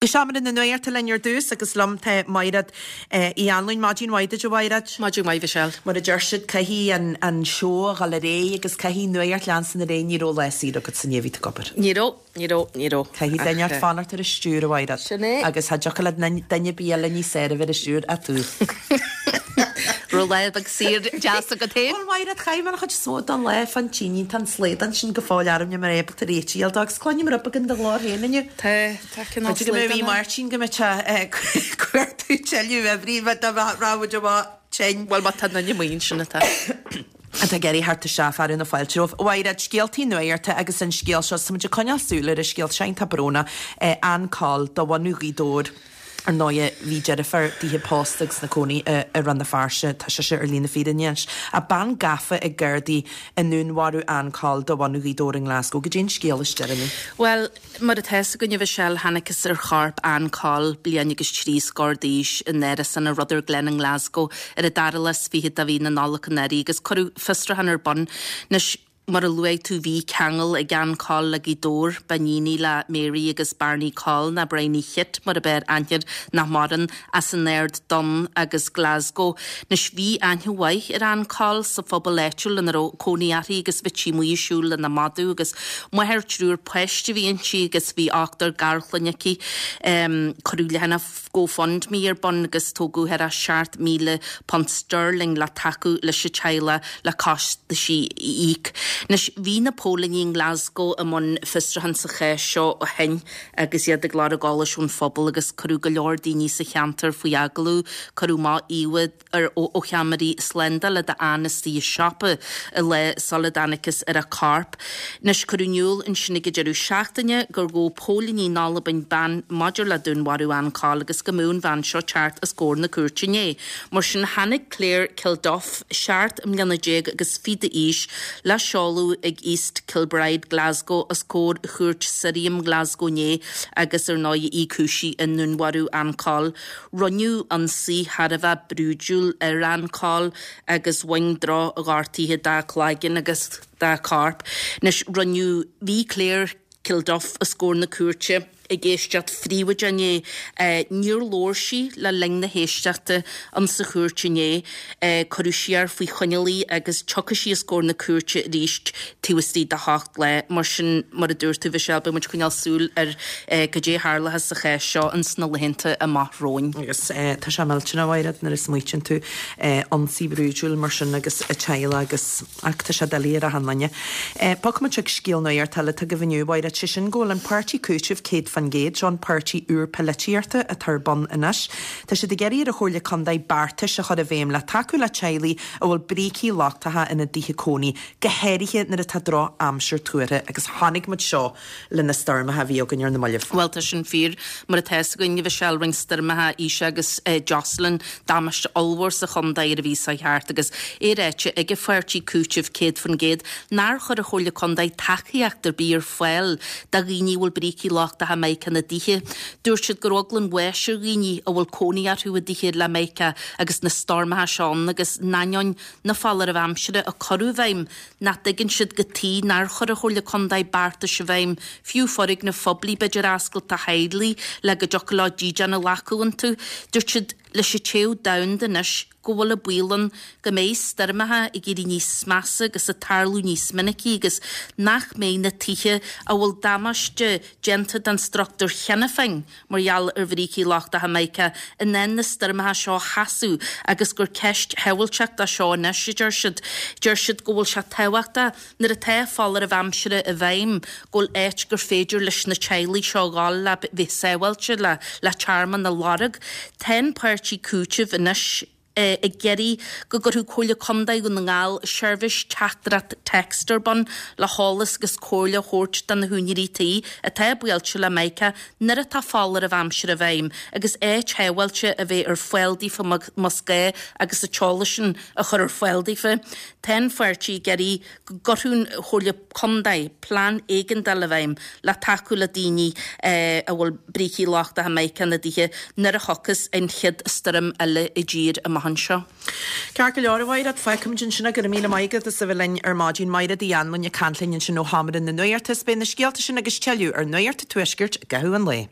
Go seomra na nuachta linn ar dtús agus liom tá Maighread Uí Anluain. Maidin mhaith duit a Mhaighread. Maidin mhaith Mhichelle. Mar a deir siad, caithfidh an seó a dhul ar aghaidh agus caithfidh nuacht leanstan ar aghaidh. Ní raibh lá saor agat inné, bhí tú ag obair. Ní raibh, ní raibh, ní raibh. Caithfidh duine inteacht fanacht ar an stiúir a Mhaighread. Sin é. Agus cha dtiocfadh le duine ar bith eile níos fearr a bheith ar an stiúir ach tú. Raibh lá beag saor deas agat féin? Bhuel Mhaighread, chaith mé an chuid is mó den lá fán tine, tá an slaghdán sin go fóill orm, níl mé ábalta réitigh a fháil dó agus cluinim rud beag in do ghlór féin inniu. Tá, tá cineál B'fhéidir go mbeidh slaghdán ann. Máirtín go mbeidh sé ag cuartú tuilleadh oibrí dá raibh muid amach tinn. Bhuel má tá duine amuigh ansin atá. atá ag iarraidh theacht isteach fearadh na fáilte romhaibh. A Mhaighread, scéaltaí nuachta agus an scéal seo, tá muid ag coinneáil súil ar an scéal seo iontach brónach, Ann Coll de bhunadh Ghaoth Dobhair. Ar ndóighe, bhí deirfiúr dithe pósta agus ina cónaí i Rann na Feirste, tá sise ar shlí na fírinne anois. Ach bean gafa ag Gardaí i ndúnmharú Ann Coll de bhunadh Ghaoth Dobhair i nGlasgow. Goidé an scéal is deireanaí? Bhuel, mar atá fhios againn a Mhichelle, thángthas ar chorp Ann Coll, bliain agus 30 d'aois, in árasán i Rutherglen i nGlasgow ar an dara lá is fichead de mhí na Nollag anuraidh agus cuireadh fiosrúchán ar bun. Anois, Mar a luaigh tú bhí ceangal ag Ann Coll le Gaoth Dobhair, b'iníon í le Mary agus Barney Coll, nó Briney Chit mar ab fhearr aithne air, nach maireann, as an Aird Donn agus Glasgow. Anois bhí aithne mhaith ar Ann Coll sa phobal áitiúil ina raibh cónaí uirthi agus bhíodh sí amuigh ag siúl lena madadh agus máthair triúr páiste a bhí inti agus bhí ochtar garchlainne aici. Cuireadh leathanach GoFundMe ar bun agus tógadh thar £7,000 sterling le tacú leis an teaghlach le costaisí a íoc. Anois, bhí na póilíní i nGlasgow i mbun fiosrúchán sa chás seo ó shin agus iad ag lorg eolais ón phobal agus cuireadh go leor daoine sa cheantar faoi agallamh. Cuireadh amach íomhá ar ó cheamaraí slándála d'Ann istigh i siopa an lá sula dtángthas ar a corp. Anois, cuireadh in iúl ansin ag an deireadh seachtaine gur ghabh póilíní in Albain bean maidir le dúnmharú Ann Coll agus go mbeadh an bhean seo teacht os comhair na cúirte inné. Mar sin, tháinig Claire Kilduff, 17 mbliana agus fiche d'aois, le seoladh ag East Kilbride, Glasgow, os comhair Chúirt Sirriam Glasgow inné agus ar ndóigh í cúisithe i ndúnmharú Ann Coll. Rinneadh ionsaí thar a bheith brúidiúil ar Ann Coll agus bhain droch-ghortuithe dá cloigeann agus dá corp. Anois, rinneadh, bhí Claire Kilduff os comhair na cúirte ag éisteacht phríobháideach inné. Níor labhair sí le linn na héisteachta insa chúirt inné. Cuireadh siar faoi choinneáil í agus tiocfaidh sí os comhair na cúirte arís taobh istigh de sheacht lá. Mar sin, mar a dúirt tú, Mhichelle, beidh muid ag coinneáil súil ar cad é a tharlóchas sa chás seo ins na laethanta amach romhainn. Agus tá sé millteanach, a Mhaighread, nuair a smaoitíonn tú, ionsaí brúidiúil mar sin agus a teaghlach agus, ach tá sé doiligh ar achan duine. Bogfaidh muid chuig scéal nuachta eile atá agaibh inniu, a Mhaighread, sé sin go bhfuil an páirtí Cúitimh 100%, seo an páirtí úr polaitíochta atá ar bun anois. Tá siad ag iarraidh ar an Chomhairle Contae beartais a chur i bhfeidhm le tacú le teaghlaigh a bhfuil brící lochtacha ina dtithe cónaí, go háirithe nuair atá droch-aimsir tuartha agus chonaic muid seo le na stoirmeacha a bhí againn ar na mallaibh. Bhuel, tá sin fíor. Mar atá fhios againn, a Mhichelle, rinne stoirmeacha Isha agus Jocelyn damáiste ollmhór sa chontae ar an mhí seo thart agus é ráite ag an pháirtí Cúitimh 100% nár chuir an Chomhairle Contae tacaíocht ar bith ar fáil do dhaoine a bhfuil brící lochtacha mica ina dtithe. Dúirt siad go raibh eagla an bháis ar dhaoine a bhfuil cónaí orthu i dtithe le mica agus na stoirmeacha seo ann agus in ainneoin na foláirimh aimsire a cuireadh i bhfeidhm nach dtuigeann siad cad tuige nár chuir an Chomhairle Contae beartais i bhfeidhm, fiú foirgnimh phoiblí b'fhéidir a oscailt do theaghlaigh le go dtiocfadh leo dídean a ghlacadh iontu. Dúirt siad, leis an téamh domhanda anois, go bhfuil an baol ann go mbeidh stoirmeacha ag éirí níos measa agus ag tarlú níos minicí agus nach mbeidh na tithe a bhfuil damáiste déanta don struchtúr cheana féin mar gheall ar bhrící lochtacha mica, in ann na stoirmeacha seo a sheasamh agus gur ceist shábháilteachta seo anois, a deir siad. Deir siad go bhfuil sé tábhachtach, nuair atá foláireamh aimsire i bhfeidhm, go bhfuil áit gur féidir leis na teaghlaigh seo a dhul le bheith sábháilte, le le tearmann a lorg. Tá an páirtí Cúitimh anois. ag iarraidh go gcuirfeadh Comhairle Contae Dhún na nGall seirbhís teachtaireacht text ar bun le heolas agus comhairle a thabhairt do na húinéirí tí atá buailte le mica nuair atá foláireamh aimsire i bhfeidhm agus áit shábháilte a bheith ar fáil daofa más gá agus an t-eolas sin a chur ar fáil daofa. Tá an pháirtí ag iarraidh go gcuirfeadh an Chomhairle Contae plean éigeandála i bhfeidhm le tacú le daoine a bhfuil brící lochtacha mica ina dtithe nuair a thiocfas an chéad stoirm eile i dtír amach anseo. Ceart go leor, a Mhaighread, fágfaimid ansin é. Go raibh míle maith agat as a bheith linn ar maidin. Maighread Uí Anluain ag caint linn ansin ó Sheomra na Nuachta. Is beidh na scéalta sin agus tuilleadh ar Nuacht an Tuaiscirt i gcaitheamh an lae.